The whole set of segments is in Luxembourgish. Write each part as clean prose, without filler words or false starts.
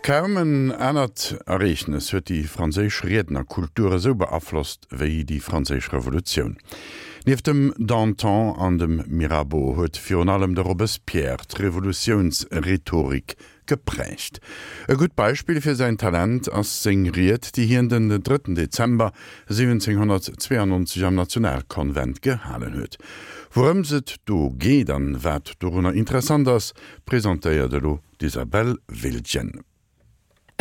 Kaum en anert Ereegnes huet déi franséisch Riednerkultur esou beaflosst wéi déi Franséisch Revolutioun. Nieft dem Danton an dem Mirabeau huet virun allem de Robespierre d'Revolutiounsrhetorik geprägt. E gutt Beispill fir säin Talent ass seng Ried, déi hien den drëtten Dezember 1792 am Nationalkonvent gehalen huet. Wourëms et do geet an wat dorunner interessant ass, presentéiert elo d'Isabelle Wiltgen.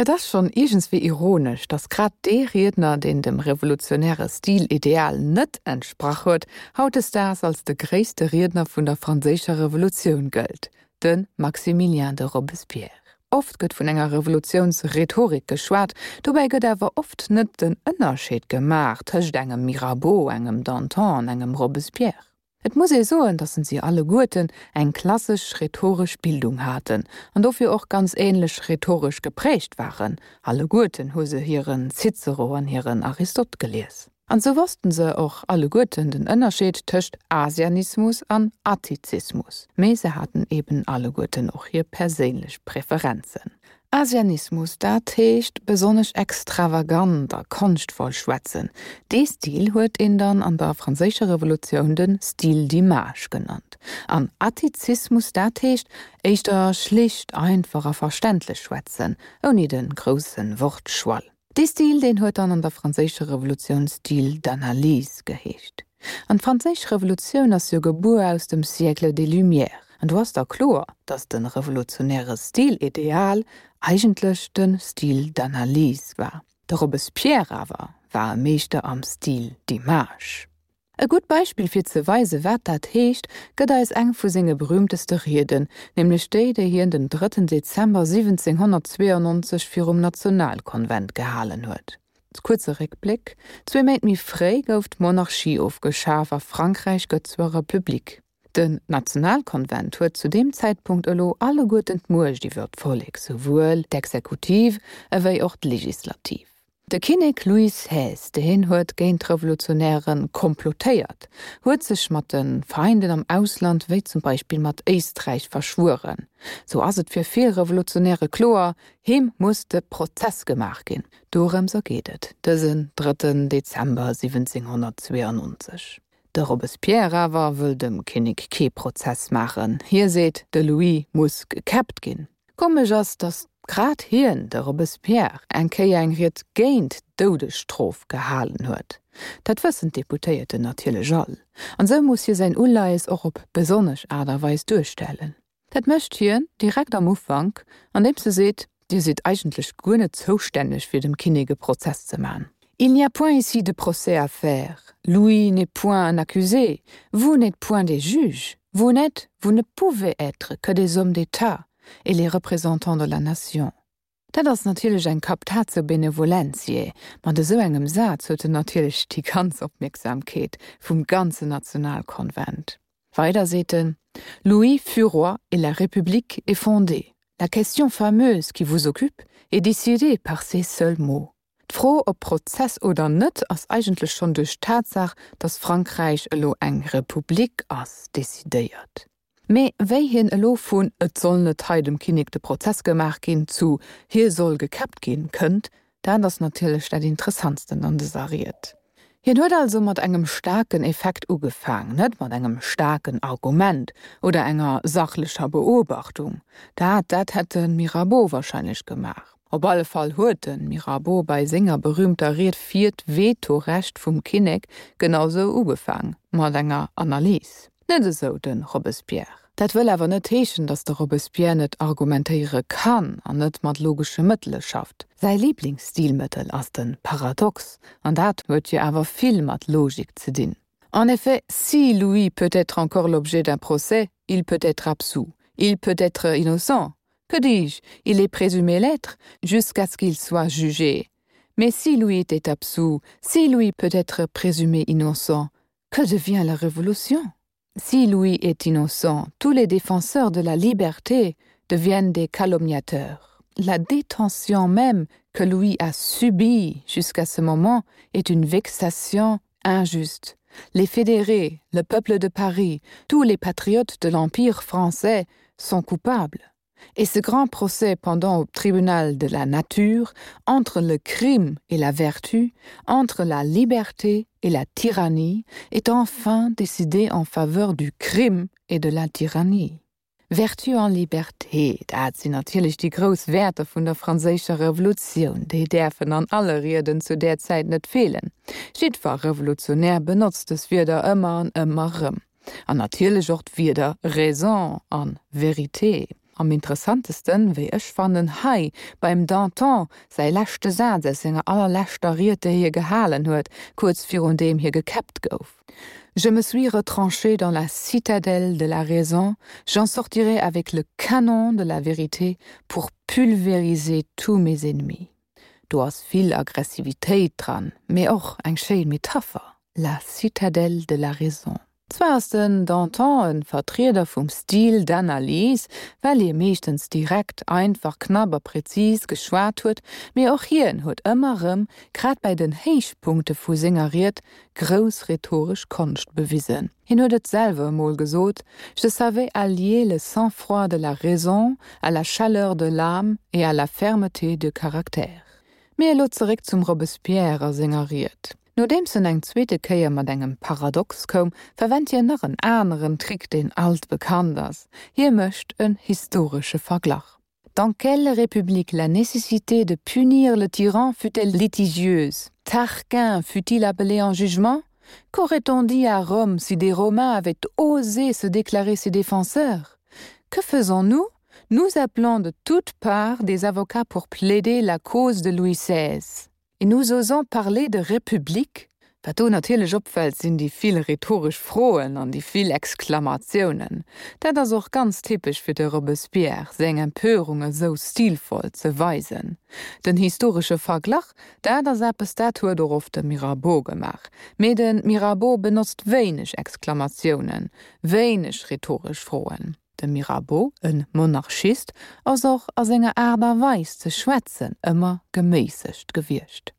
Et ass schonn iergendswéi ironesch, datt grad dee Riedner, deen dem revolutionäre Stilideal net entsprach huet, hautdesdaags als de gréisste Riedner vun der Franséischer Revolutioun gëllt, de Maximilien de Robespierre. Oft gëtt vun enger Revolutiounsrhetorik geschwat, dobäi gëtt awer oft net den Ënnerscheed gemaach tëscht engem Mirabeau, engem Danton an engem Robespierre. Et muss ee soen, datt si alleguerten eng klassesch rhetoresch Bildung haten an dofir och ganz änlech rhetoresch geprägt waren. Alleguerten hu se hiren Cicero an hiren Aristot gelies. An sou wossten se och alleguerten den Ënnerscheed tëscht Asianismus an Attizismus. Mee se haten eben alleguerten och hir perséinlech Preferenzen. Asianismus, dat heescht besonnesch extravagant a konschtvoll schwätzen. Dee Stil huet een dann an der Franséischer Revolutioun de Style d'image genannt. An Attizismus, dat heescht éischter schlicht, einfach a verständlech schwätzen, ouni de grousse Wortschwall. Dee Stil, deen huet dann an der Franséischer Revolutioun Style d'analyse geheescht. An d'Franséisch Revolutioun ass jo gebuer aus dem Siècle des Lumières. An do ass da kloer, datt de revolutionäre Stilideal eigentlech de Style d'analyse war. De Robespierre awer war e Meeschter am Style d'image. E gutt Beispill fir ze weise wat dat heescht, gëtt eis eng vu senge berühmteste Rieden, nämlech déi, déi hien den drëtten Dezember 1792 virum Nationalkonvent gehalen huet. Kuerze Réckbléck, Zwee Méint méi fréi gouf d'Monarchie ofgeschaf a Frankräich gëtt zur Republik. Den Nationalkonvent huet zu deem Zäitpunkt elo alleguerten d'Muecht iwwer d'Vollek, souwuel d'Exekutiv ewéi och d'Legislativ. De Kinnek Louis xvi, deen huet géint d'Revolutionäre komplotéiert, huet sech mat de Feinden am Ausland, wéi zum Beispill mat Éisträich, verschwueren. Sou ass et fir vill Revolutionäre kloer, him muss de Prozess gemaach ginn. Dorëms ergeet et dësen drëtten Dezember 1792. De Robespierre awer wëll dem Kinnek kee Prozess maachen. Hie seet, de Louis muss gekäppt ginn. Komesch ass, datt grad hien, de Robespierre, eng Kéier eng Ried géint d'Doudesstrof gehalen huet. Dat wëssen d'Deputéierten natierlech all, an esou muss hie säin Uleies och op besonnesch Aart a Weis duerstellen. Dat mécht hien direkt am Ufank, andeems e seet, Dir sidd eigentlech guer net zoustänneg fir dem Kinnek e Prozess ze man. Il n'y a point ici de procès à faire, Louis n'est point un accusé, vous n'êtes point des juges. Vous n'êtes, vous ne pouvez être que des hommes d'État et les représentants de la nation. Dat ass natierlech eng Captatio benevolentiae. Mat esou engem Saz huet en natierlech déi ganz Opmierksamkeet vum ganzen Nationalkonvent. Weider seet en, Louis fut roi et la République est fondée. La question fameuse qui vous occupe est décidée par ces seuls mots. D'Fro, ob Prozess oder net, ass eigentlech schonn duerch d'Tatsaach, datt Frankräich elo eng Republik ass, decidéiert. Mee wéi hien elo vun et soll net hei dem Kinnek de Prozess gemaach ginn zu hie soll gekäppt ginn kënnt, dat ass natierlech dat Interessantsten an dëser Ried. Hien huet also mat engem staarken Effekt ugefaang, net mat engem staarken Argument oder enger sachlecher Beobachtung. Dat, dat hätt de Mirabeau wahrscheinlech gemaach. Op alle Fall huet de Mirabeau bei senger berühmter Ried fir d'Vetorecht vum Kinnek genau sou ugefaang, mat enger Analys. Net esou de Robespierre. Dat wëll awer net heeschen, datt de Robespierre net argumentéiere kann an net mat logesche Mëttele schafft. Säi Liblingsstilmëttel ass de Paradox, an dat huet jo awer vill mat Logik ze dinn. En effet, si Louis peut être encore l'objet d'un procès, il peut être absous, il peut être innocent, que dis-je, il est présumé l'être jusqu'à ce qu'il soit jugé. Mais si Louis était absous, si Louis peut être présumé innocent, que devient la révolution? Si Louis est innocent, tous les défenseurs de la liberté deviennent des calomniateurs. La détention même que Louis a subie jusqu'à ce moment est une vexation injuste. Les fédérés, le peuple de Paris, tous les patriotes de l'Empire français sont coupables. Et ce grand procès pendant au tribunal de la nature, entre le crime et la vertu, entre la liberté et la tyrannie, est enfin décidé en faveur du crime et de la tyrannie. Vertu an Liberté, dat sinn natierlech déi grouss Wäerter vun der franséischer Revolutioun. Déi däerfen an alle Rieden zu där Zäit net feelen. Jiddwer Revolutionär benotzt dës Wierder ëmmer an ëmmer rëm. An natierlech och d'Wierder Raison an Vérité. Am interessantesten, wéi ech fannen, hei beim Danton säi leschte Saz aus senger allerleschter Ried, déi hie gehalen huet, kuerz virun deem hie gekäppt gouf. Je me suis retranché dans la citadelle de la raison, j'en sortirai avec le canon de la vérité pour pulvériser tous mes ennemis. Do ass vill Aggressivitéit dran, mee och eng schéin Metapher, la citadelle de la raison. Zwar ass den Danton e Vertrieder vum Style d'analyse, well hie meeschtens direkt, einfach, knapp a präzis geschwat huet, mee och hien huet ëmmer rëm, grad bäi den Héichpunkte vu senger Ried, grouss rhetoresch Konscht bewisen. Hien huet et selwer emol gesot, Je savais allier le sang-froid de la raison à la chaleur de l'âme et à la fermeté de caractère. Mee elo zeréck zum Robespierre a senger Ried. Nodeems en eng zweete Kéier mat engem Paradox koum, verwennt hien nach en aneren Trick, deen alt bekannt ass, Hie mécht en historesche Verglach. Dans quelle république la nécessité de punir le tyran fut-elle litigieuse? Tarquin fut-il appelé en jugement? Qu'aurait-on dit à Rome si des Romains avaient osé se déclarer ses défenseurs? Que faisons-nous? Nous appelons de toutes parts des avocats pour plaider la cause de Louis XVI. Et nous osons parler de République? Wat do natierlech opfält, sinn déi vill rhetoresch Froen an déi vill Exklamatiounen. Dat ass och ganz typesch fir de Robespierre, seng Empörung esou stilvoll ze weisen. Den historesche Verglach, dat ass eppes, dat huet och oft de Mirabeau gemaach. Mee de Mirabeau benotzt wéineg Exklamatiounen, wéineg rhetoresch Froen. De Mirabeau, en Monarchist, ass och a senger Aart a Weis ze schwätzen ëmmer geméissegt gewiescht.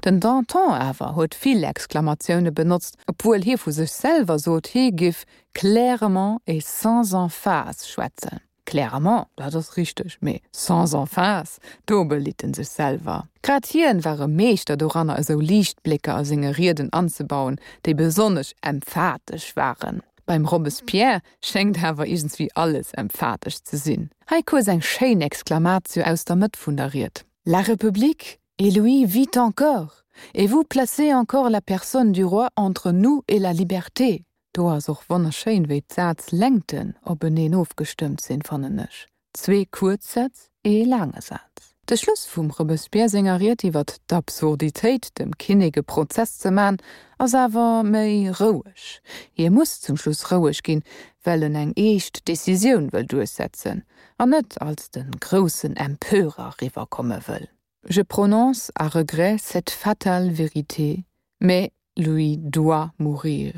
Den Danton awer huet vill Exklamatioune benotzt, obwuel hie vu sech selwer sot, hie giff clairement et sans emphase schwätzen. Clairement, dat ass richteg, mee sans emphase, do belitt en sech selwer. Grad hien war e Meeschter doranner esou Liichtblécker a senge Rieden anzebauen, déi besonnesch emphatesch waren. Beim Robespierre schéngt awer iergendswéi alles emphatesch ze sinn. Hei kuerz eng schéin Exclamatio aus der Mëtt vun der Ried, La République et Louis vit encore, et vous placez encore la personne du roi entre nous et la liberté! Do ass och wonnerschéin, wéi d'Sazlängten openeen ofgestëmmt sinn, fannen ech. Zwee kuerz Sätz, ee laange Saz. De Schluss vum Robespierre senger Ried iwwer d'Absurditéit, dem Kinnek e Prozess ze man, ass awer méi roueg. Hie muss zum Schluss roueg ginn, well en eng eescht Decisioun wëll duerchsetzen an net als de groussen Empörer riwwerkomme wëll. Je prononce à regret cette fatale vérité, mais Louis doit mourir,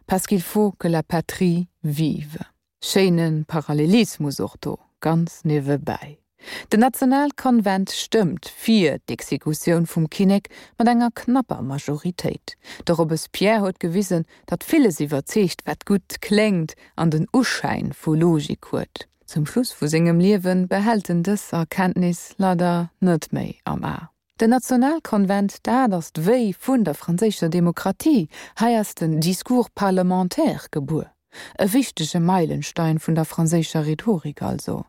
parce qu'il faut que la patrie vive. Schéine Parallelismus och do, ganz niewebäi. Den Nationalkonvent stëmmt fir d'Exekutioun vum Kinnek mat enger knapper Majoritéit. De Robespierre huet gewisen, datt villes iwwerzeegt, wat gutt kléngt an den Uschäin vu Logik huet. Zum Schluss vu sengem Liewe behält en dës Erkenntnis leider net méi am A. Den Nationalkonvent, dat ass d'Wéi vun der franséischer Demokratie. Hei ass den Discours parlementaire gebuer. E wichtege Meilenstein vun der franséischer Rhetorik also.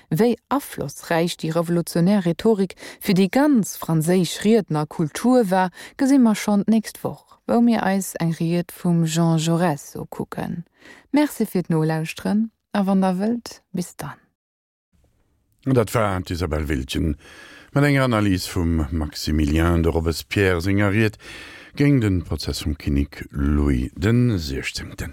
Wéi aflossräich déi revolutionär Rhetorik fir déi ganz franséisch Riednerkultur war, gesi mer schonn d'nächst Woch, wou mir eis eng Ried vum Jean Jaurès ukucken. Merci fir d'Nolauschteren a wann der wëllt, bis dann. Dat war d'Isabelle Wiltgen mat enger Analys vum Maximilien de Robespierre senger Ried géint de Prozess vum Kinnek Louis den Siechzéngten.